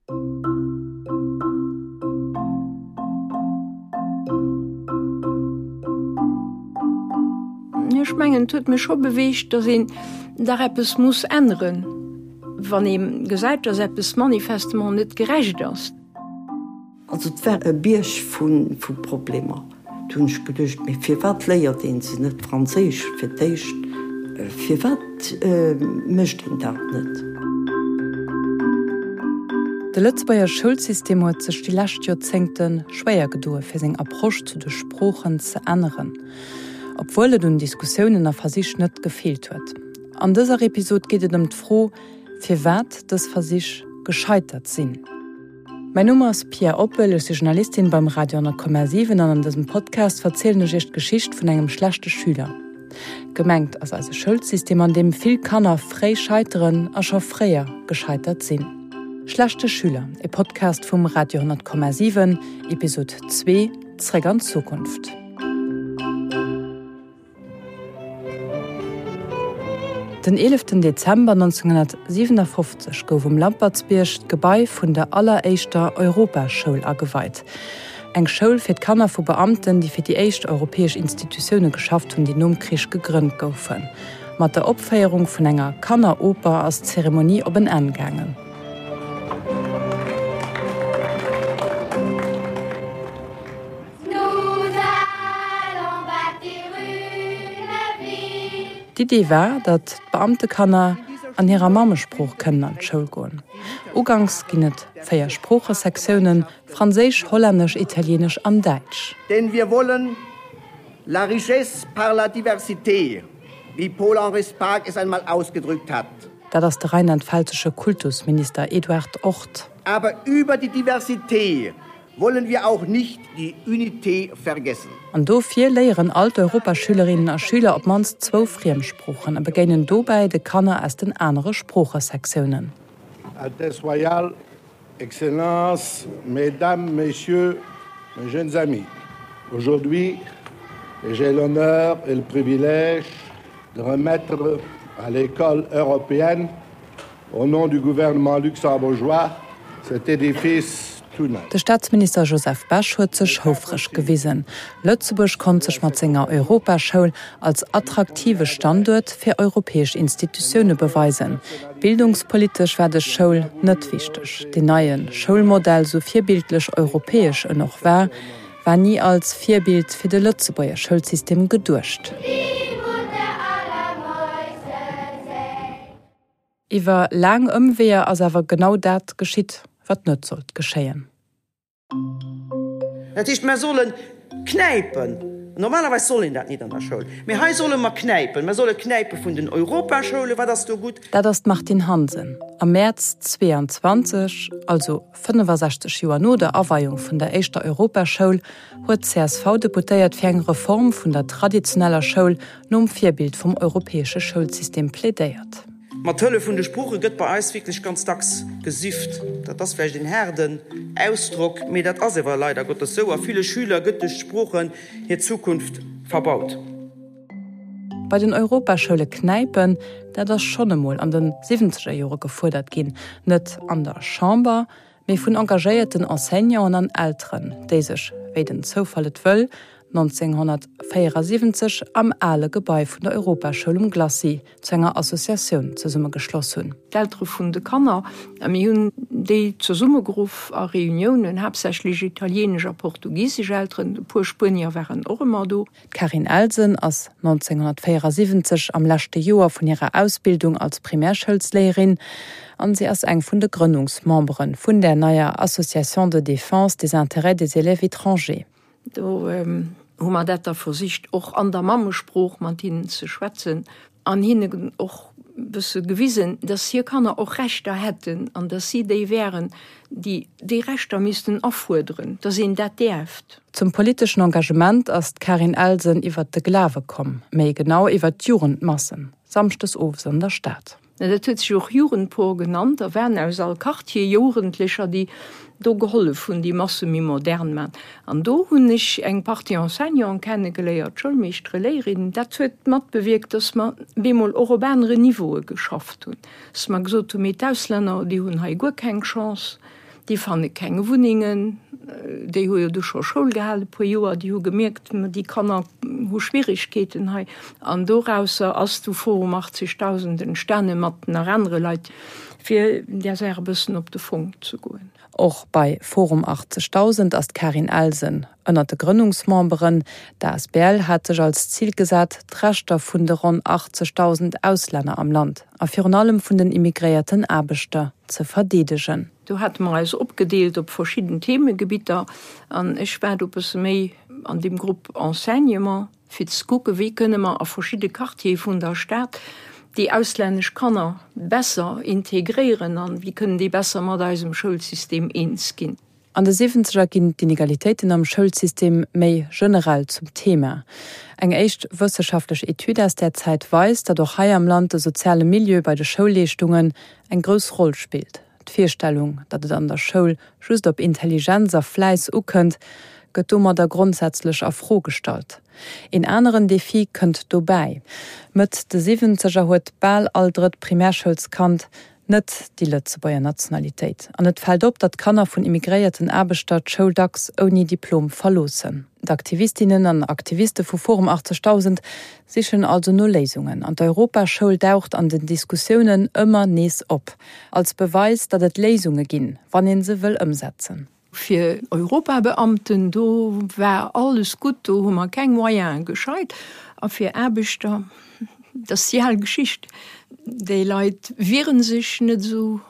Ech mengen, et huet mech scho beweegt, datt een dach eppes muss änneren, wann ee gesäit, datt eppes manifestement net gerecht ass. Also et war e Bierg vu Problemer. Du hunn ech geduecht, mee firwat léiert een se net Franséisch fir d'éischt? Firwat mécht een dat net? De Lëtzebuerger Schoulsystem huet sech déi lescht Joerzéngte schwéier gedoe fir seng Approche zu de Sproochen ze änneren, obwuel et un Diskussiounen a Versich net gefeelt huet. An dëser Episod geet et ëm d'Fro, firwat dës Versich gescheitert sinn. Mäin Numm ass Pia Oppel, ech si Journalistin beim Radio 10,7 an an dësem Podcast verzielen ech iech d'Geschicht vun engem schlechte Schüler. Gemengt ass eise Schoulsystem, an deem vill Kanner fréi scheiteren a scho fréier gescheitert sinn. Schlechte Schüler, e Podcast vum Radio 10,7, Episod 2, Zréck an d'Zukunft. Den 11 Dezember 1957 gouf um Lampertsbierg d'Gebai vun der alleréischter Europaschoul ageweit. Eng Schoul fir d'Kanner vu Beamten, déi fir déi éischt europäesch Institutioune geschafft hunn, déi nom Krich gegrënnt goufen. Mat der Opféierung vun enger Kanneroper ass d'Zeremonie op en Enn gaangen. D'Idee war, datt d'Beamtekanner an hirer Mammesprooch kënnen an d'Schoul goen. Uganks ginn et 4 Sproochesektiounen, Franséisch, Hollännesch, Italieenesch an Däitsch. Denn wir wollen la richesse par la diversité, wie Paul-Henri Spaak es einmal ausgedrückt hat. Dat ass de rheinland-pfälzesche Kultusminister Eduard Orth. Aber über die Diversité Wollen wir auch nicht die Unité vergessen. An dofir léieren all d'Europaschülerinnen a Schüler op d'mannst zwou Friemsproochen a begéinen dobäi de Kanner aus den anere Sproochesektiounen. Altesse Royale, Excellences, Mesdames, Messieurs, mes jeunes amis, aujourd'hui, j'ai l'honneur et le privilège de remettre à l'école européenne Au nom du gouvernement luxembourgeois, cet édifice tout neuf. De Staatsminister Joseph Bech huet sech houfreg gewisen. Lëtzebuerg konnt sech mat senger Europaschoul als attraktive Standuert fir europäesch Institutioune beweisen. Bildungspolitesch war dës Schoul net wichteg. Deen neie Schoulmodell, sou virbildlech europäesch en och war, war ni als Virbild fir de Lëtzebuerger Schoulsystem geduecht. Iwwer laang Ëmweeër ass awer genau dat geschitt, wat net sollt geschéien. Dat heescht, mer solle knäipen. Normalerweis soll een dat nit an der Schoul, mee hei solle mer knäipen. Mer solle knäipe vun den Europaschoulen. Wat ass do gutt? Dat ass d'Martine Hansen. Am Mäerz 22, also 65 Joer no der Aweiung vun der éischter Europaschoul, huet d'CSV-Deputéiert fir eng Reform vun der traditioneller Schoul nom Virbild vum europäesche Schoulsystem plädéiert. Mat Hëllef vun de Sprooche gëtt bei eis wierklech ganz dacks gesifft. Dat ass vläicht een haarden Ausdrock, mee dat ass ewer leider Gottes sou. A ville Schüler gëtt duerch d'Sproochen hir Zukunft verbaut. Bei den Europaschoule knäipen, dat ass schonn emol an de siwwenzeger Jore gefuerdert ginn, net an der Chamber, mee vun engagéierten Enseignanten an Elteren, déi sech, wéi den Zoufall et wëll, 1974 am ale Gebai vun der Europaschoul um Glacis zu enger Associatioun zesummegeschloss hunn. D'Eltere vun de Kanner, a mir hunn déi zesummegeruff a Reuniounen, haaptsächlech italienesch a portugisesch Elteren, e puer Spuenier waren och ëmmer do. D'Carine Elsen ass 1974 am leschte Joer vun hirer Ausbildung als Primärschoulsléierin an si ass eng vun de Grënnungsmembere vun där neier Association de défense des intérêts des élèves étrangers. Do hu mer dat da versicht och an der Mammesprooch mat hinnen ze schwätzen an hinnen och e bësse gewisen, dass hir Kanner och Rechter hätten an dass si déi wären, déi déi Rechter missten afuerderen, dass een dat däerft. Zum politeschen Engagement ass d'Carine Elsen iwwert de Glawe komm, méi genau iwwert d'Jugendmassen, samschdes owes an der Stad. Dat huet sech och Jugendpor genannt. Da waren aus all Quartier Jugendlecher, déi do gehollef hunn, déi Masse méi modern man. An do hunn ech eng Partie Enseignanten kennegeléiert, Schoulmeeschtere, Léierinnen. Dat huet matbewierkt, dass mer bemol och op aneren Niveaue geschafft hunn, dass mer gesot hunn, mee d'Auslänner, déi hunn hei guer keng Chance. Déi fanne keng Wunnengen. Déi hu jo du scho Schoul gehal e puer Joer. Déi hu gemierkt, déi Kanner hu Schwierigkeeten hei. An dorausser ass du Forum 80.000 entstane mat nach anere Leit, fir där Saach e bëssen op de Fong ze goen. Och bei Forum 80.000 ass d'Karin Elsen ënnert de Grënnungsmemberen. D'asbl hat sech als Zil gesat, d'Rechter vun de ronn 80.000 Auslänner am Land a virun allem vun den immigréierten Aarbechter ze verdeedegen. Do hate mer eis opgedeelt op verschidden Themegebitter an ech war do e bësse méi an deem Grupp Enseignement, fir ze kucken, wéi kënne mer a verschidde Quartiere vun der Stad déi auslännesch Kanner besser integréieren an wéi kënnen déi besser mat eisem Schoulsystem eens ginn. An de Siwwenzeger ginn d'Inegalitéiten am Schoulsystem méi generell zum Thema. Eng éischt wësseschaftlech Etüd aus där Zäit weist, datt och hei am Land de soziale Milieu bei de Schoulleeschtungen eng grouss Roll spillt. D'Virstellung, datt et an der Schoul just op Intelligenz a Fläiss ukënnt, gëtt domadder grondsätzlech a Fro gestallt. Een aneren Defi kënnt dobäi, Mëtt de Siwwenzeger huet bal all drëtt Primärschoulskand net déi Lëtzebuerger Nationalitéit an et fält op, datt Kanner vun immigréierten Aarbechter d'Schoul dacks ouni Diplom verloossen. D'Aktivistinnen an Aktiviste vu Forum 80000 sichen also no Léisungen an d'Europaschoul daucht an den Diskussiounen ëmmer nees op, als Beweis, datt et Léisunge ginn, wann ee se wëll ëmsetzen. Fir Europabeamten, do war alles gutt, do hu mer keng Moyene gescheit. A fir Aarbechter, dat ass déi al Geschicht, déi Leit wiere sech net esou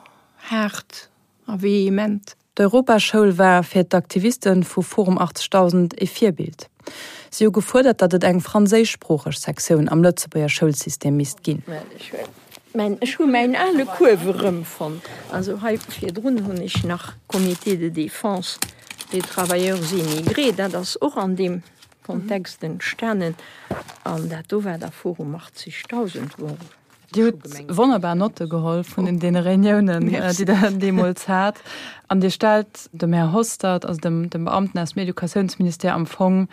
haart a vehement. D'Europaschoul war fir d'Aktiviste vu Forum 80000 e Virbild. Si hu gefuerdert, datt et eng franséischsproocheg Sektioun am Lëtzebuerger Schoulsystem misst ginn. Ech hu mäin ale Kuerf erëmfonnt. Also hei virdrun hunn ech nach Comité de défense des travailleurs immigrés, dat ass och an deem Kontext entstanen. An dat do war da Forum 80.000, wou Dir hutt wonnerbar Notte geholl vun deene Reuniounen, déi Der deemools hat. An Dir stellt dem Här Hostert, also dem Beamten aus dem Educatiounsministère, am Fong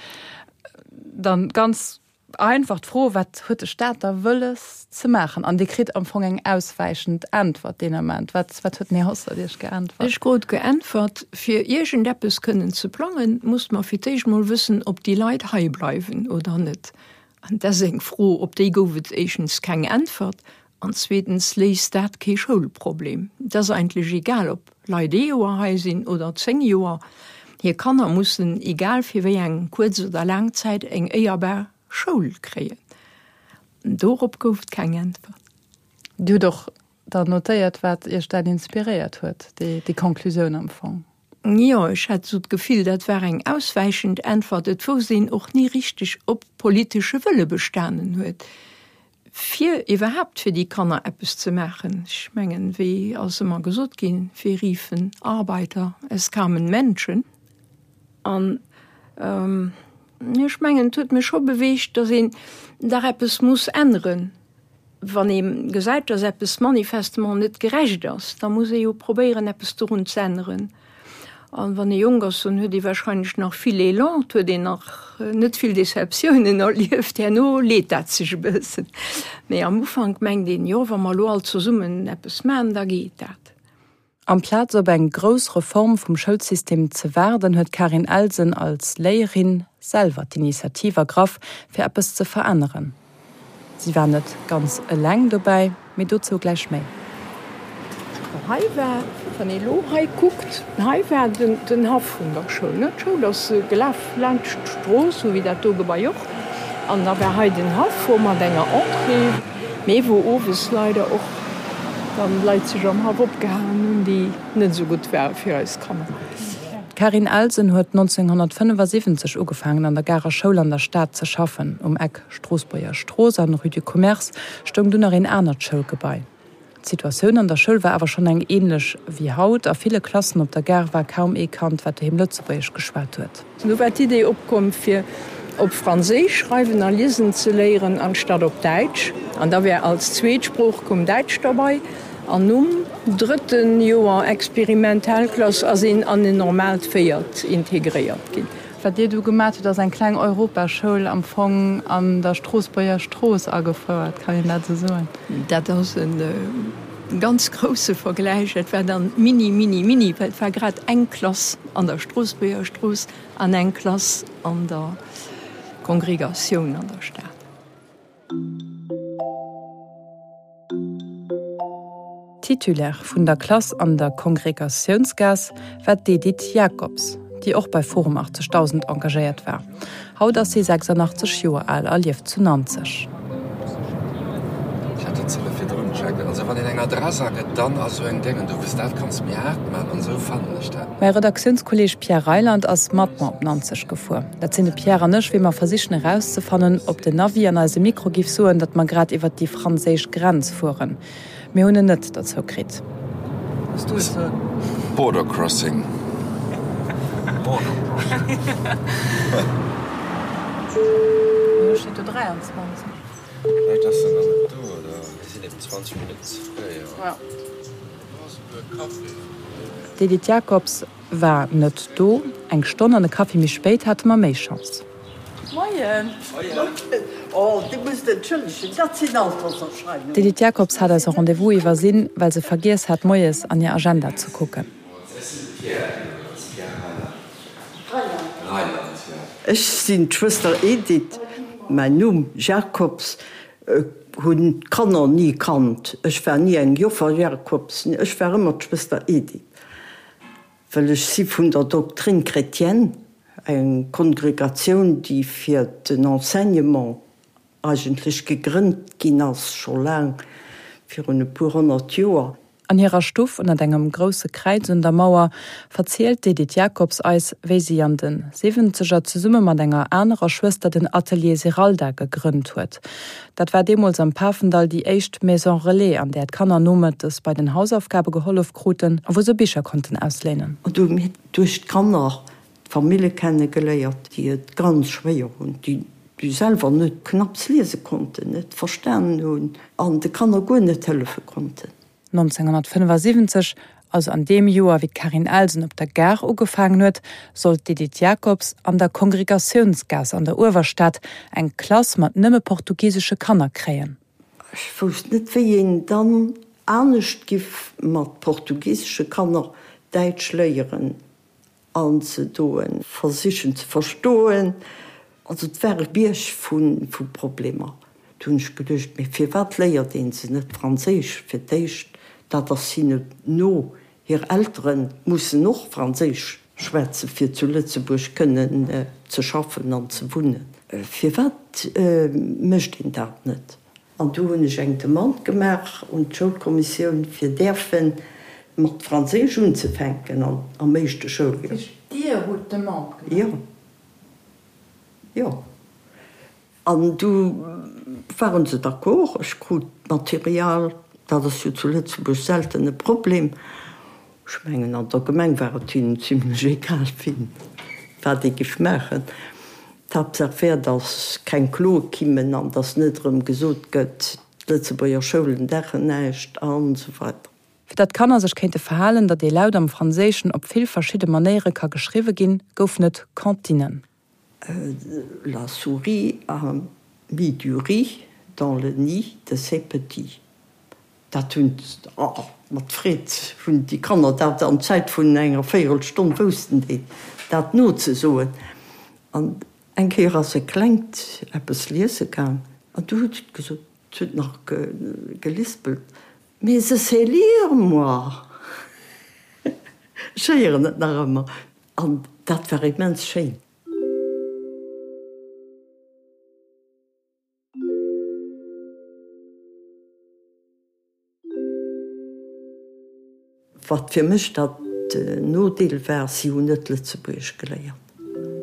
dann ganz einfach d'Fro, Wat huet de Staat da wëlles ze maachen? An Dir kritt am Fong eng auswäichend Äntwert deen Ament. Wat huet den Här Hostert Iech geäntwert? Ech krut geäntwert, Fir iergendeppes kënnen ze plangen, musst mer fir d'éischt mol wëssen, ob déi Leit hei bleiwen oder net. An dat ass eng Fro, op déi gouf et éischtens keng Äntwert an zweetens léist dat kee Schoulproblem. Et ass eigentlech egal, ob Leit ee Joer hei sinn oder 10 Joer, hir Kanner mussen, egal fir wéi eng kuerz oder laang Zäit, eng éierbar Schoul kréien. Dorop gouf et keng Äntwert. Dir hutt och dann notéiert, wat Iech dat inspiréiert huet, déi Conclusioun am Fong? Jo, ech hat esou d'Gefill, dat war eng auswäichend Äntwert. Et wousst een och ni richteg, ob politesche Wëlle bestanen huet, fir iwwerhaapt fir déi Kanner eppes ze maachen. Ech mengen, wéi ass ëmmer gesot ginn, Wir riefen Arbeiter, es kamen Menschen. An ech mengen, et huet mech scho beweegt, datt een dach eppes muss änneren. Wann ee gesäit, dass eppes manifestement net gerecht ass, da muss ee jo probéieren, eppes dorun ze änneren. An wann ee jonk ass, dann huet ee wahrscheinlech nach vill Elan, et huet een nach net vill Deceptiounen erlieft. Herno leet dat sech e bëssen. Mee am Ufank mengt een, jo, wa mer elo all zesummen eppes maachen, da geet dat. Amplaz op eng grouss Reform vum Schoulsystem ze waarden, huet d'Karin Elsen als Léierin selwer d'Initiativ ergraff, fir eppes ze veränneren. Si war net ganz eleng dobäi, mee dozou gläich méi. Hei war, wann ee lo hei kuckt, hei war den Haff vun der Schoul, ne? D'Schoul ass gelaf laanscht d'Strooss, sou wéi dat do Gebai och. An da war hei den Haff, wou mat enger Entrée, mee wou owes leider och dann Leit sech am Haff opgehaangen hunn, déi net esou gutt ware fir eis Kanner. D'Carine Elsen huet 1975 ugefaangen an der Garer Schoul an der Stad ze schaffen. Um Eck Stroossbuerger Strooss an Rue du Commerce stoung dunn nach een anert Schoulgebai. D'Situatioun an der Schoul war awer schonn eng änlech wéi haut. A ville Klassen op der Gare war kaum ee Kand, wat doheem Lëtzebuergesch geschwat huet. Du war d'Idee opkomm, fir op Franséisch schreiwen a liesen ze léieren, anstatt op Däitsch. An da wär als zweet Sprooch koum Däitsch derbei. An nom drëtte Joer Experimentalklass ass een an en normaalt véiert integréiert ginn. Wat Dir do gemat hutt, ass eng kleng Europaschoul am Fong an der Stroossbuerger Strooss agefouert, kann een dat esou soen? Dat ass e. ganz grousse Vergläich, dat war dann mini, mini, mini, well et war grad eng Klass an der Stroossbuerger Strooss an eng Klass an der Kongregatioun an der Stad. Titulaire vun der Klass an der Kongregatiounsgaass war d'Edith Jacobs, déi och bei Forum 80000 engagéiert war. Haut ass si 86 Joer al a lieft zu Nanzeg. Ech hat dat ze virdrun checkt. Also wann een eng Adress agëtt, dann ass esou eng Déngen do, wëss dat kanns méi haart man an esou fannen ech dat. Mäi Redaktiounskolleeg Pierre Reyland ass mat mer op Nanzeg gefuer. Dat sinn de Pierre an ech, wéi mer versichen erauszefannen, ob den Navi an eise Mikro giff soen, datt mer grad iwwert déi franséisch Grenz fueren. Mir hunn en net derzou kritt. Border crossing. Do steet do 23. Vläicht ass en nach net do, oder mir sinn eben 20 Minutten ze fréi. D'Edith Jacobs war net do. Eng Stonn an e Kaffi méi spéit hate mer méi Chance. Moien! Oh, Dir musst entschëllegen, dat sinn Alterserscheinungen. D'Edith Jacobs hat eise Rendez-vous iwwersinn, well se vergiess hat, moies an hir Agenda ze kucken. Ech sinn de Pierre iwwregens, Pierre Reyland. Reyland, jo. Ech sinn d'Schwëster Edith. Mäin Numm Jacobs hunn d'Kanner ni kannt. Ech war ni eng Joffer Jacobs, ech war ëmmer d'Schwëster Edith. Well ech si vun der Doctrine chrétienne, eng Kongregatioun, déi fir den Enseignement eigentlech gegrënnt ginn ass, scho laang virun e puer 100 Joer. An hirer Stuff ënnert engem grousse Kräiz un der Mauer verzielt d'Edith Jacobs eis, wéi si an de Siwwenzeger zesumme mat enger anerer Schwëster den Atelier Zeralda gegrënnt huet. Dat war deemools am Pafendall déi éischt Maison Relais, an där d'Kanner nomëttes bei den Hausaufgabe gehollef kruten a wou se Bicher konnten ausléinen. An do hu mir duerch d'Kanner d'Famille kenne geléiert, déi et ganz schwéier hunn, déi selwer net knapps liese konnten, net verstanen hunn an de Kanner guer net hëllefe konnten. 1975, also an deem Joer wéi d'Carine Elsen op der Gare ugefaangen huet, sollt d'Edith Jacobs an der Kongregatiounsgaass an der Uewerstad eng Klass mat nëmme portugisesche Kanner kréien. Ech wousst net, wéi een dann anescht giff mat portugisesche Kanner Däitsch léieren. Anzedoen, versichen ze verstoen. Also et war e Bierg vu Problemer. Du hunn ech geduecht, mee firwat léiert ee se net Franséisch fir d'éischt? Dat ass hinne no. Hir Eltere mussen och Franséisch schwätzen, fir zu Lëtzebuerg kënnen ze schaffen an ze wunnen. Firwat mécht een dat net? An du hunn ech eng Demande gemaach un d'Schoulkommissioun, fir däerfe mat Franséisch unzefänken am éischte Schouljoer. Dir hutt d'Demande gemaach? Jo. Jo. An du ware se d'accord. Ech krut d'Material. Dat ass jo zu Lëtzebuerg selten e Problem. Ech mengen, an der Gemeng war et hinnen zimlech egal, wien wat ee giff maachen. D'Haaptsaach wär, datt keng Kloe kimmen an datt net erëm gesot gëtt, d'Lëtzebuerger Schoulen daachen näischt an esou weider. Fir datt d'Kanner sech kéinte verhalen, datt ee Laut am Franséischen op vill verschidde Manéiere ka geschriwwe ginn, goufen et Cantinen. La souris a mis du riz dans le nid de ses petits. Dat hunn, oh, mat Freed hunn déi Kanner dat an Zäit vun enger Véierelstonn woussten déi dat nozesoen. An eng Kéier ass e Klengt eppes liese gaang an du huet et gesot, et huet nach gelispelt, Mais je sais lire, moi! Ech héieren et nach ëmmer. An dat war immens schéin. Wat fir mech dat Nodeel war, si hunn net Lëtzebuergesch geléiert.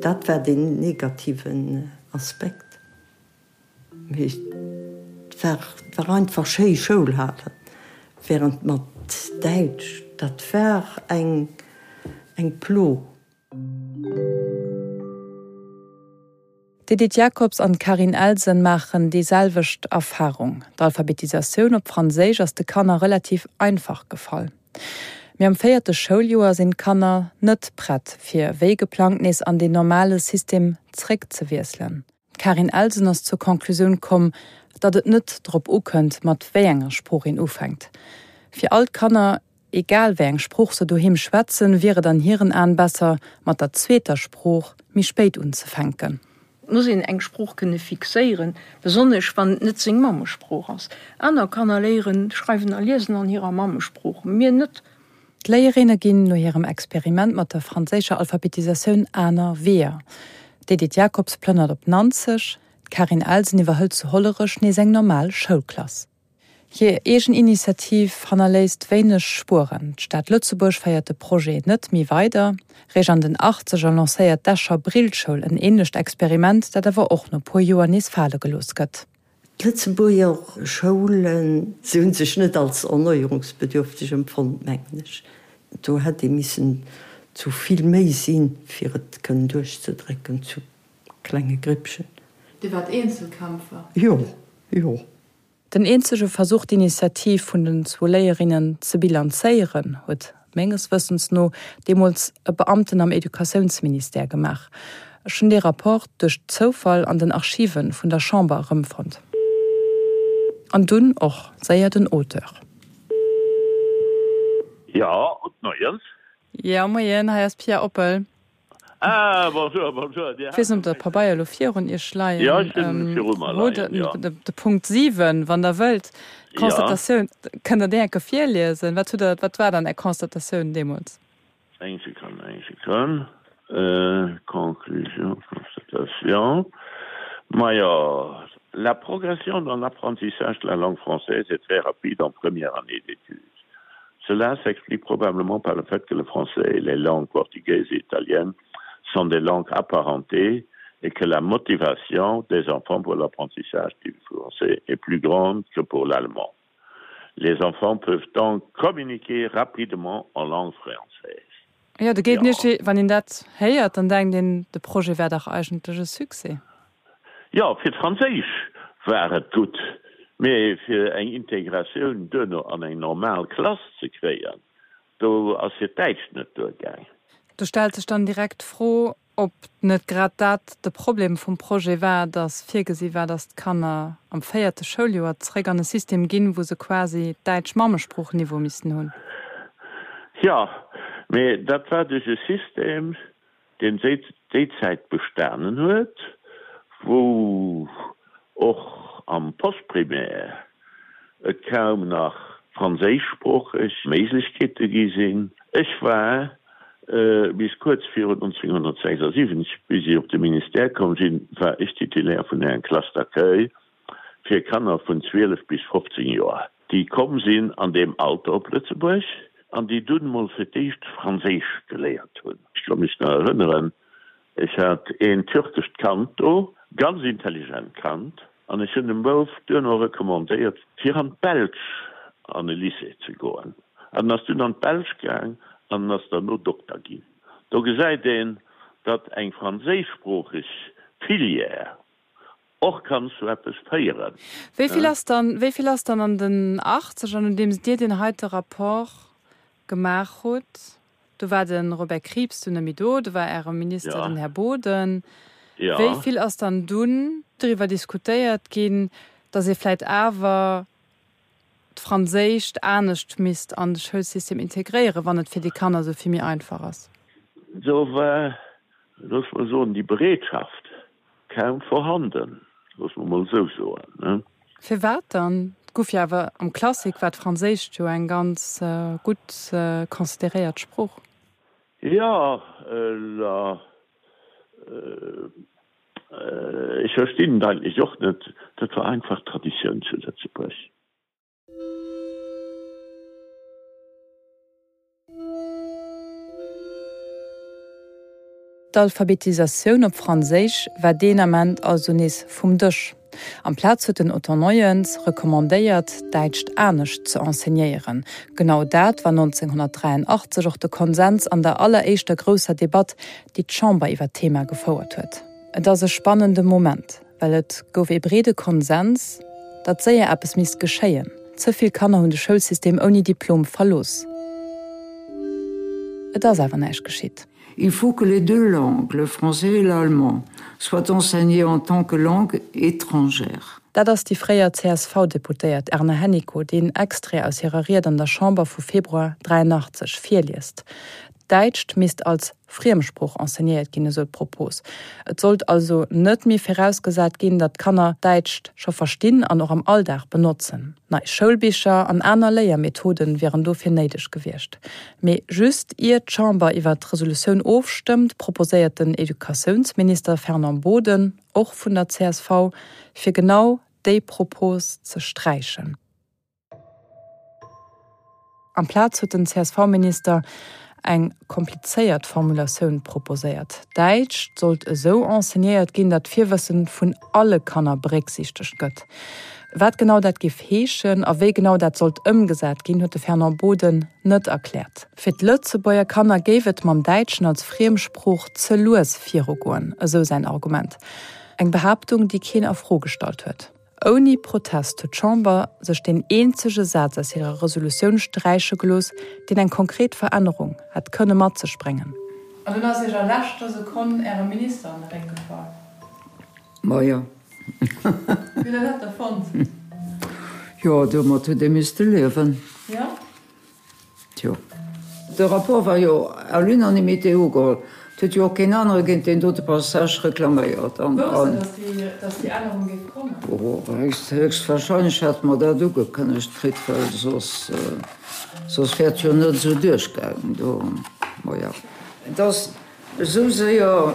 Dat war deen negativen Aspekt. Mee et war, war einfach schéi Schoul halen, während mat Däitsch, dat war eng, eng Plo. D'Edith Jacobs an d'Carine Elsen maachen déi selwecht Erfarung. D'Alphabetisatioun op Franséisch ass de Kanner relativ einfach gefall. Mee am véierte Schouljoer sinn d'Kanner net prett, fir wéi geplangt nees an deen normale System zréckzewiesselen. D'Carine Elsen ass zur Conclusioun komm, datt et net drop ukënnt, mat wéi enger Sprooch een ufänkt. Fir all d'Kanner, egal wéi eng Sprooch se doheem schwätzen, wier et an hiren Aen besser, mat der zweeter Sprooch méi spéit unzefänken. Et muss een eng Sprooch kënne fixéieren, besonnesch wann et net seng Mammesprooch ass. Aner Kanner léieren schreiwen a liesen an hirer Mammesprooch, mir net. D'Léierinne ginn no hirem Experiment mat der franséischer Alphabetisatioun aner Weeër. D'Edith Jacobs plënnert op Nanzeg, d'Karin Elsen iwwerhëlt zu Hollerech nees eng normal Schoulklass. Hir eegen Initiativ hannerléisst wéineg Spueren, D'Stad Lëtzebuerg féiert de Projet net méi weider. Réischt an den Achtzeger lancéiert d'Escher Brillschoul en änlecht Experiment, dat awer och no puer Joer nees fale gelooss gëtt. D'Lëtzebuerger Schoulen, se hu sech net als erneuerungsbedürfteg empfonnt, mengen ech. Do hätt ee missen zu vill méi sinn, fir et kënnen duerchzedrécken zu klenge Grippchen. Dir waart Eenzelkämpfer? Jo, jo. Den eenzege Versuch, d'Initiativ vun den zwou Léierinnen ze bilanzéieren, huet menges Wëssens no deemools e Beamten am Educatiounsministère gemaach. Ech hunn dee Rapport duerch Zoufall an den Archive vun der Chamber erëmfonnt. An dunn och séier den Auteur. Jo, gudde Moien. Jo, Moien, hei ass d'Pia Oppel. Ah, bonjour, bonjour. Dir Ech weess net, ob Der d'Pabeier elo virun Iech leien Jo, ech hunn viru mer leien, jo. De Punkt 7, wann Der wëllt, d'Constatatioun, kënnt Der déi eng Kéier virliesen? Wat hutt Der, wat war dann Är Constatatioun deemools? Eng Sekonn, eng Sekonn. Conclusion, constatation, majo, La progression dans l'apprentissage de la langue française est très rapide en première année d'études. Cela s'explique probablement par le fait que le français et les langues portugaises et italiennes sont des langues apparentées et que la motivation des enfants pour l'apprentissage du français est plus grande que pour l'allemand. Les enfants peuvent donc communiquer rapidement en langue française. Jo, do geet nicht, wann een dat héiert, dann denkt een, de Projet wär dach eigentlech e Succès. Jo, fir d'Franséisch war et gutt, mee fir eng Integratioun duerno an eng normal Klass ze kréien, do ass hiert Däitsch net duergaang. Do stellt sech dann direkt d'Fro, ob net grad dat de Problem vum Projet war, dass virgesi war, dass d'Kanner am véierte Schouljoer zréck an e System ginn, wou se quasi Däitsch Mammesproochniveau missten hunn. Jo, mee dat war duerch e System, deen déi Zäit bestanen huet, wou och am Postprimaire et kaum nach franséischsproocheg Méiglechkeete gi sinn. Ech war bis kuerz virun 1976, bis ech op de Ministère komm sinn, war ech Titulaire vun enger Classe d'accueil fir Kanner vun 12 bis 15 Joer, déi komm sinn an deem Alter op Lëtzebuerg an déi dunn mol fir d'éischt Franséisch geléiert hunn. Ech ka mech nach erënneren, ech hat een türkescht Kand do, ganz intelligent Kand, an ech hunn dem Bouf duerno recommandéiert, fir an d'Belsch an e Lycée ze goen. An en ass dunn an d'Belsch gaang an en ass derno Dokter ginn. Do gesäit een, datt eng franséischsproocheg Filière Och kann zu eppes féieren. Wéi vill ass dann, wéi vill ass dann an den Achtzeger, nodeems Dir deen heite Rapport gemaach hutt, do war de Robert Krieps dunn net méi do, do war Äre Minister den Här Boden, wéi vill ass dann dunn driwwer diskutéiert ginn, datt ee vläicht awer d'Franséischt anescht misst an de Schoulsystem integréieren, wann et fir déi Kanner esou vill méi einfach ass? Do war, loosse mer soen, déi Bereetschaft Kaum vorhanden, loosse mer mol esou soen. Firwat dann? Et guff jo awer am Classique war d'Franséischt jo eng ganz gutt consideréiert Sprooch. Jo, la, ech verstinn et eigentlech och net. Dat war einfach Traditioun zu Lëtzebuerg. D'Alphabetisatioun op Franséisch war deen Ament also nees vum Dësch. Amplaz huet den Otto Neuens recommandéiert, d'Däitscht anescht ze enseignéieren. Genau dat war 1983 och de Konsens an der alleréischter grousser Debatt, déi d'Chamber iwwer d'Thema gefouert huet. Et ass e spannende Moment. Well et gouf ee breede Konsens, datt séier eppes misst geschéien. Ze vill Kanner hunn de Schoulsystem ouni Diplom verlooss. Et ass awer näischt geschitt. Il faut que les deux langues, le français et l'allemand, soient enseignées en tant que langues étrangères. Dat ass déi fréier CSV-Deputéiert Erna Hennicot, déi en Extrait aus hirer Ried an der Chamber vu Februar 83 virliest. D'Däitscht misst als Friemsprooch enseignéiert ginn, esou d'Propos. Et sollt also net méi virausgesat ginn, datt d'Kanner Däitscht scho verstinn an och am Alldag benotzen. Nei Schoulbicher an aner Léiermethode wieren dofir néideg gewiescht. Mee just ier d'Chamber iwwer d'Resolutioun ofstëmmt, proposéiert den Educatiounsminister Fernand Boden, och vun der csv, fir genau déi Propos ze sträichen. Amplaz huet den CSV-Minister eng komplizéiert Formulatioun proposéiert, Däitsch sollt esou enseignéiert ginn, datt d'Virwësse vun alle Kanner berécksiichtegt gëtt. Wat genau dat géif heeschen a wéi genau dat sollt ëmgesat ginn, huet de Fernand Boden net erkläert. Fir d'Lëtzebuerger Kanner géif et mam Däitschen als Friemsprooch ze lues virugoen, esou säin Argument. Eng Behaaptung, déi keen a Fro gestallt huet. Ouni Protest huet d'Chamber sech deen eenzege Saz aus hirer Resolutioun sträiche gelooss, deen eng konkret Verännerung hätt kënne mat sech bréngen. An dunn ass Iech a leschter Sekonn Äre Minister an de Réck gefall. Majo. Wéi hutt Der dat da fonnt? Jo, domat huet ee misste liewen. Jo? Tjo. De Rapport war jo à l'unanimité ugeholl. Et huet jo och keen anere géint deen dote Passage reklaméiert. An, Wousst Der, dass déi Ännerung géif kommen? Oh, héchstwahrscheinlech hate mer dat ugekënnegt kritt, well soss, soss wär et jo net esou duerchgaangen do. Maja. Et ass esou séier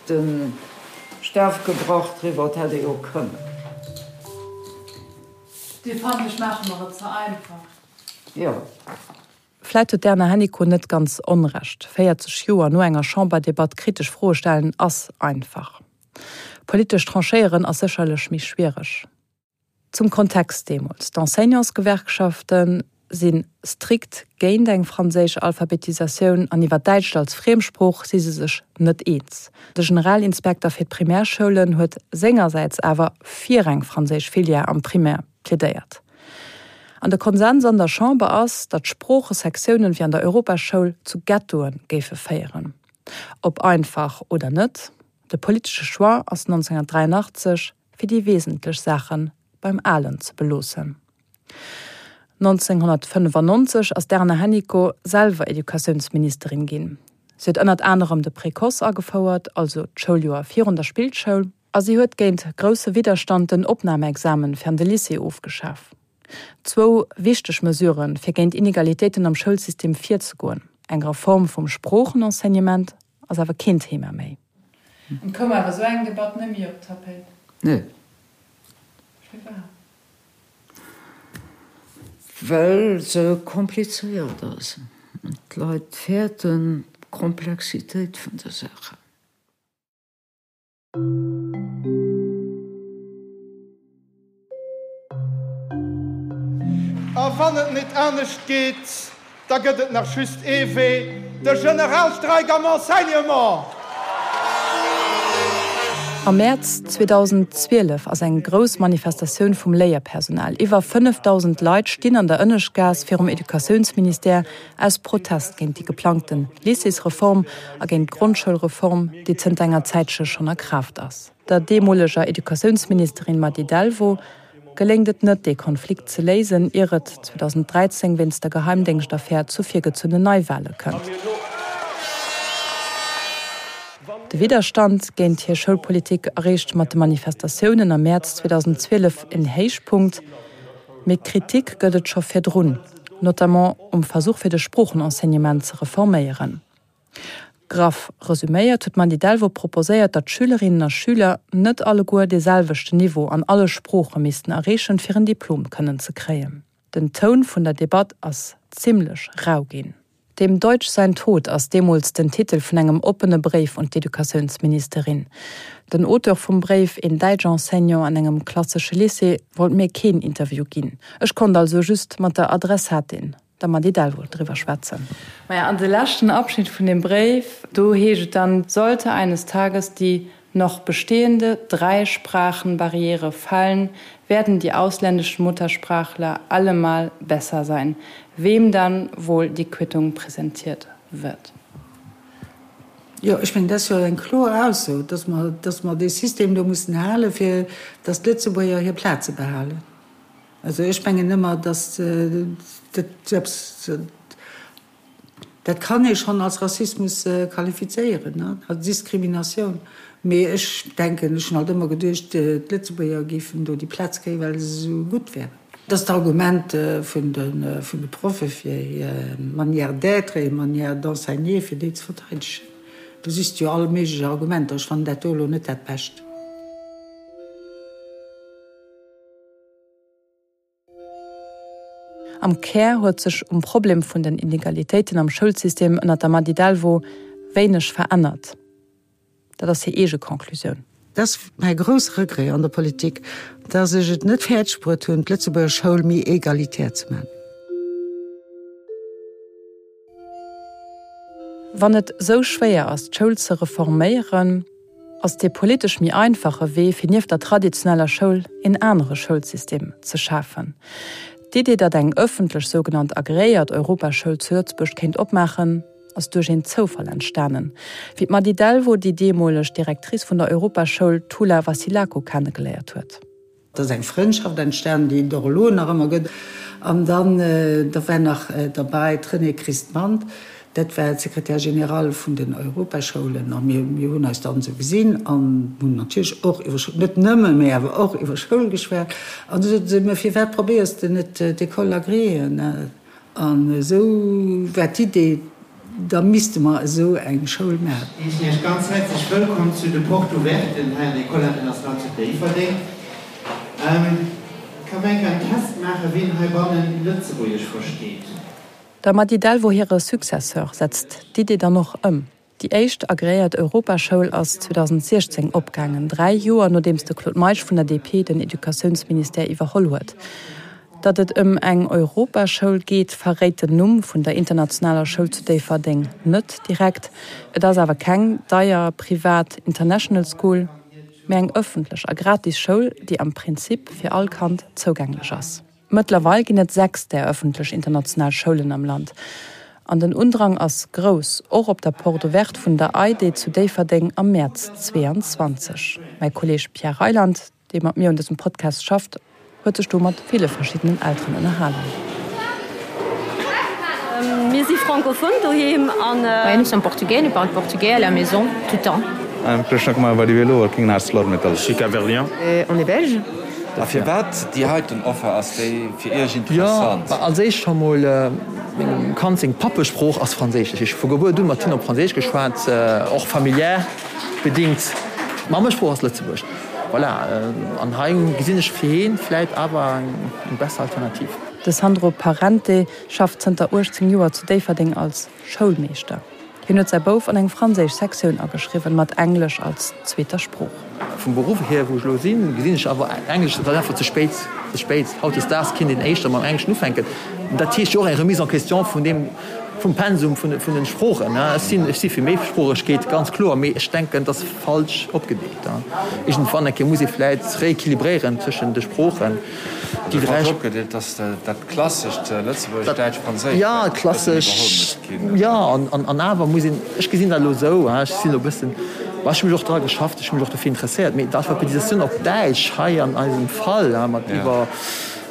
de Staf gebrach driwwer, et hätt ee jo kënnen. Dir fannt, ech maache mer et ze einfach. Jo. Vläit huet d'Erna Hennicot net ganz Onrecht. 40 Joer no enger Chamberdebatt kritesch Froe stellen ass einfach. Politesch tranchéieren ass sécherlech méi schwiereg. Zum Kontext deemools, D'Enseignantsgewerkschafte si strikt géint eng franséisch Alphabetisatioun an iwwer Däitscht als Friemsprooch si se sech net eens. De Generalinspekter fir d'Primärschoulen huet sengersäits awer fir eng franséisch Filière am Primaire plädéiert. An de Konsens an der Chamber ass, datt Sproochesektiounen wéi an der Europaschoul zu Ghettoe géife féieren. Ob einfach oder net, de politesche Choix ass 1983 fir déi wesentlech Saache beim Alen ze beloossen. 1995 ass d'Erna Hennicot selwer Educatiounsministerin ginn. Si huet ënnert anerem de Précoce agefouert, also d'Schouljoer virun der Spillschoul, a si huet géint grousse Widderstand den Opnamexamen fir an de Lycée ofgeschaf. Zwou wichteg Mesuren, fir géint Inegalitéiten am Schoulsystem virzegoen. Eng Reform vum Sproochenenseignement ass awer keen Thema méi. An koum awer esou eng Debatt net méi op d'Tapéit? Nee. Firwat? Well se komplizéiert ass. D'Leit fäerten d'Komplexitéit vun de Saachen. A wann et net anescht geet, da gëtt et nach just ee Wee, de Generalstreik am Enseignement! Am Mäerz 2012 ass eng grouss Manifestatioun vum Léierpersonal. Iwwer 5.000 Leit stinn an der Ënneschtgaass virum Educatiounsministère aus Protest géint déi geplangte Lycéesreform a géint d'Grondschoulreform, déi zënter enger Zäitche schonn a Kraaft ass. Der deemoleger Educatiounsministerin Mady Delvaux geléngt et net, dee Konflikt ze léisen, ier et 2013 wéinst der Geheimdéngschtaffär zu virgezunnen Neiwale kënnt. De Widderstand géint hir Schoulpolitik erreecht mat de Manifestatiounen am Mäerz 2012 en Héichpunkt, mee Kritik gëtt et scho virdrun, notamment um Versuch fir de Sproochenenseignement ze reforméieren. Graff resuméiert huet d'Mandy Delvaux proposéiert, datt Schülerinnen a Schüler net alleguer dee selwechten Niveau an alle Sprooche missten erreechen, fir en Diplom kënnen ze kréien. Den Toun vun der Debatt ass zimmlech rau ginn. Dem Deutsch sein Tod ass deemools den Titel vun engem oppene Bréif un d'Educatiounsministerin. Den Auteur vum Bréif, een Däitsch-Enseignant an engem klassesche Lycée, wollt mir keen Interview ginn. Ech konnt also just mat der Adressatin der Mady Delvaux driwwer schwätzen. Maja, an de leschten Abschnitt vun deem Bréif, do heescht et dann, Sollte eines Tages die noch bestehende Dreisprachenbarriere fallen, werden die ausländischen Muttersprachler allemal besser sein, wem dann wohl die Quittung präsentiert wird. Jo, ech mengen, dat ass jo eng kloer Ausso, dass mer, dass mer dee System do mussen halen, fir dass d'Lëtzebuerger hir Plaze behalen. Also ech mengen ëmmer, dass dat esou eppes, dat kann ee schonn als Rassismus qualifizéieren, als Diskriminatioun. Mee ech denken, ech hunn alt ëmmer geduecht, d'Lëtzebuerger géifen do déi Plaz kréien, well se esou gutt wären. Dat ass d'Argument vun de Proffe fir hir Manière d'être, hir Manière d'enseigner, fir déi ze verteidegen. Do sichs de jo all méiglech Argumenter. Ech fannen dat do elo net dat Bescht. Am Kär huet sech um Problem vun den Inegalitéiten am Schoulsystem ënner der Mady Delvaux wéineg verännert. Dat ass hir eege Conclusioun. Dat ass mäi grousse Regret an der Politik, dass ech et net fäerdeg bruet hunn, d'Lëtzebuerger Schoul méi egalitär ze maachen. Wann et sou schwéier ass, d'Schoul ze reforméieren, ass dee politesch méi einfache Wee, fir nieft der traditioneller Schoul een anere Schoulsystem ze schafen. D'Idee, datt eng ëffentlech, sougenannt agreéiert Europaschoul zu Lëtzebuerg kéint opmaachen, ass duerch een Zoufall entstanen, wéi d'Mady Delvaux déi deemoleg Directrice vun der Europaschoul Toula Vassilakou kennegeléiert huet. Et ass eng Frëndschaft entstanen, déi et och elo nach ëmmer gëtt. An dann, da war nach derbäi d'Renée Christ-Mandt, dat war d'Secrétaire générale vun den Europaschoulen. A mir, mir hunn eis dann esou gesinn an hunn natierlech och iwwer Schoul, net nëmmen, mee awer och iwwer Schoul geschwat. An du sot se, Mä firwat probéiers de net d'École agréée? An esou war d'Idee, da misste mer esou eng Schoul maachen. Heeschen Iech ganz häerzlech wëllkomm zu de Porte Ouverten hei an der École Internationale zu Déifferdeng. Ka mer enker en Test maachen, wien heibannen Lëtzebuergesch versteet? Der Mady Delvaux hire Successeur setzt d'Idee dann och ëm. Déi éischt agreéiert Europaschoul ass 2016 opgaangen, 3 Joer nodeems de Claude Meisch vun der DP den Educatiounsministère iwwerholl huet. Datt et ëm eng Europaschoul geet, verréit den Numm vun der internationaler Schoul zu Déifferdeng net direkt. Et ass awer keng deier privat International School, mä eng ëffentlech a gratis Schoul, déi am Prinzip fir all Kand zougänglech ass. Mëttlerweil ginn et 6 där ëffentlech international Schoulen am Land. An den Undrang ass grouss, och op der Porte ouverte vun der EIDE zu Déifferdeng am Mäerz 22. Mäi Kolleeg Pierre Reyland, dee mat mir un dësem Podcast schafft, huet sech do mat ville verschiddenen Elteren ënnerhalen. Mir si francophone doheem an. Nous sommes portugais, nous parlons portugais à la maison tout le temps. Krishna Kumar Vadivelu working in ArcelorMittal. Je suis Cap-Verdien. On est belge. A firwat déi heiten Offer ass déi fir Iech interessant? Jo, als éischt scho mol, mengem Kand seng Pappesprooch ass Franséisch. Dat heescht, vu Gebuert un mat him op Franséisch geschwat, och familiär bedingt. D'Mammesprooch ass Lëtzebuergesch. Voilà, an hei gesinn ech fir hien vläit awer eng besser Alternativ. De Sandro Parente schafft zënter 18 Joer zu Déifferdeng als Schoulmeeschter. Hien huet säi Bouf an eng franséisch Sektioun ageschriwwen, mat Englesch als zweeter Sprooch. Vum Beruff hier, wou ech elo sinn, gesinn ech awer, Englesch, dat ass einfach ze spéit, ze spéit. Hautdesdaags kinnt een éischter mam Engleschen ufänken. Dat heescht jo och eng Remise en question vun deem, vum Pensum vun de Sproochen. Ech sinn, ech si fir Méisproochegkeet, ganz kloer, mee ech denken, et ass falsch opgedeelt. Iergendwann eng Kéier muss ee vläit rééquilibréieren tëschent de Sproochen. Déi dräi. Falsch opgedeelt, dass dat klassescht Lëtzebuergesch, Däitsch, Franséisch Ja, klassesch, jo, an awer muss een, ech gesinn dat elo esou, ech sinn elo e bëssen, ma ech hu mech och dra geschafft, ech hu mech och dofir interesséiert, mee d'Alphabetisatioun op Däitsch hei an eisem Fall, mat iwwer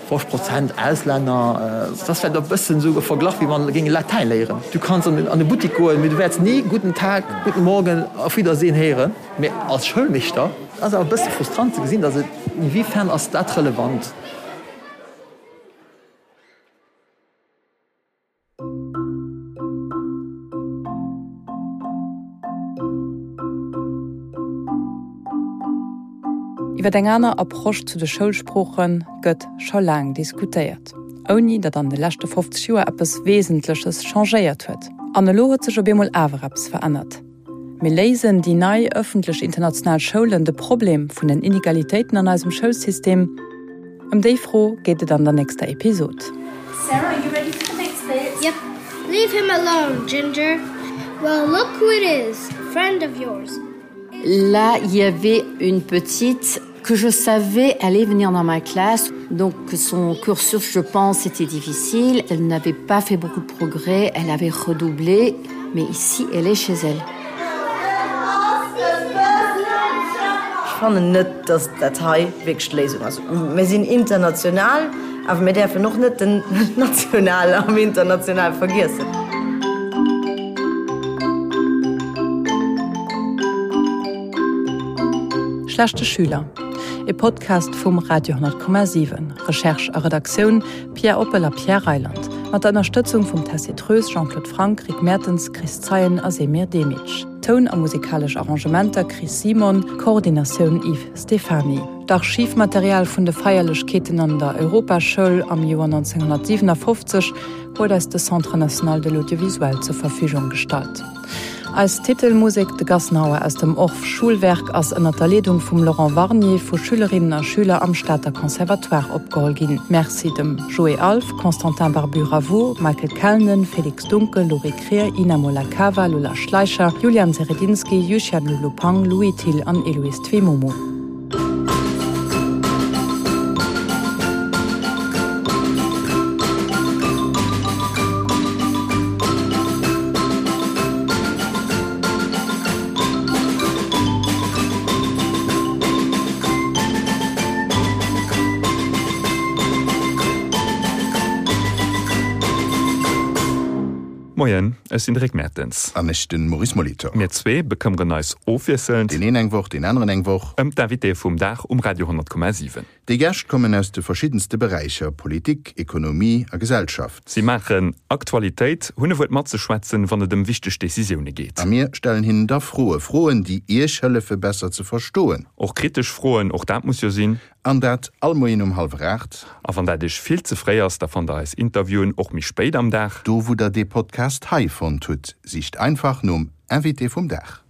50 Prozent Auslänner, dat ass vläicht e bëssen esou e Verglach, wéi wann e géing Latäin léieren. Du kanns an e Buttik goen, mee du wäerts ni Guten Tag, Guten Morgen, Auf Wiedersehen héieren. Mee als Schoulmeeschter ass awer e bësse frustrant ze gesinn, datt et, inwiefern ass dat relevant? Iwwer eng aner Approche zu de Schoulsprooche gëtt scho laang diskutéiert, ouni datt an de leschte 50 Joer eppes Wesentleches changéiert huet. An elo huet sech op eemol awer eppes verännert. Mee léisen déi nei ëffentlech international Schoulen de Problem vun den Inegalitéiten an eisem Schoulsystem? Ëm déi Fro geet et an der nächster Episod. Sarah, are you ready for the next bit? Yep. Leave him alone, Ginger. Well, look who it is, a friend of yours. Là, il y avait une petite que je savais allait venir dans ma classe. Donc son cursus, je pense, était difficile. Elle n'avait pas fait beaucoup de progrès, elle avait redoublé, mais ici, elle est chez elle. fannen net, datt dat hei wierklech d'Léisung ass. Mir sinn international, awer mir däerfen och net den Nationale am Internationale vergiessen. Schlechte Schüler, e Podcast vum Radio 10,7. Recherche a Redaktioun, Pierre Oppel a Pierre Reyland. Mat der Ënnerstëtzung vum Tessy Treus, Jean-Claude Franck, Rick Mertens, Chris Zeien a Semir Demic. Toun a musikalesch Arrangementer, Chris Simon, Koordinatioun, Yves Stephany. D'Archivmaterial vun de Feierlechkeeten an der Europaschoul am Joer 1957 huet eis de Centre national de l'audiovisuel zur Verfügung gestallt. Eis Titelmusek, De Gassenhauer aus dem Orff Schulwerk, ass ënner der Leedung vum Laurent Warnier vu Schülerinnen a Schüler am Stater Conservatoire opgeholl ginn. Merci dem Joé Alff, Constantin Barbu-Ravoux, Michael Kellnen, Félix Dunkel, Laurie Krier, Ina Molakava, Lola Schleicher, Julian Seredinski, Yuxian Lulu Pang, Louis Thill an Eloïse Twemomo. Moien, ech sinn de Rick Mertens. An ech de Maurice Molitor. Mir zwee bekëmmeren eis ofwiesselnd. Deen een eng Woch, deen aneren eng Woch. Ëm d'Invitéë vum Dag um Radio 100,7. Déi Gäscht kommen aus de verschiddenste Beräicher, Politik, Ekonomie a Gesellschaft. Si maachen Aktualitéit, hunn e Wuert matzeschwätzen, wann et ëm wichteg Decisioune geet. A mir stellen hinnen da Froe, Froen, déi Iech hëllefe besser ze verstoen. Och kritesch Froen, och dat muss jo sinn. An dat all Moien um hallwer 8. A wann dat Iech vill ze fréi ass, da fannt der eis Interviewen och méi spéit am Dag. Do wou der dee Podcast hei fonnt hutt, sicht einfach nom Invité vum Dag.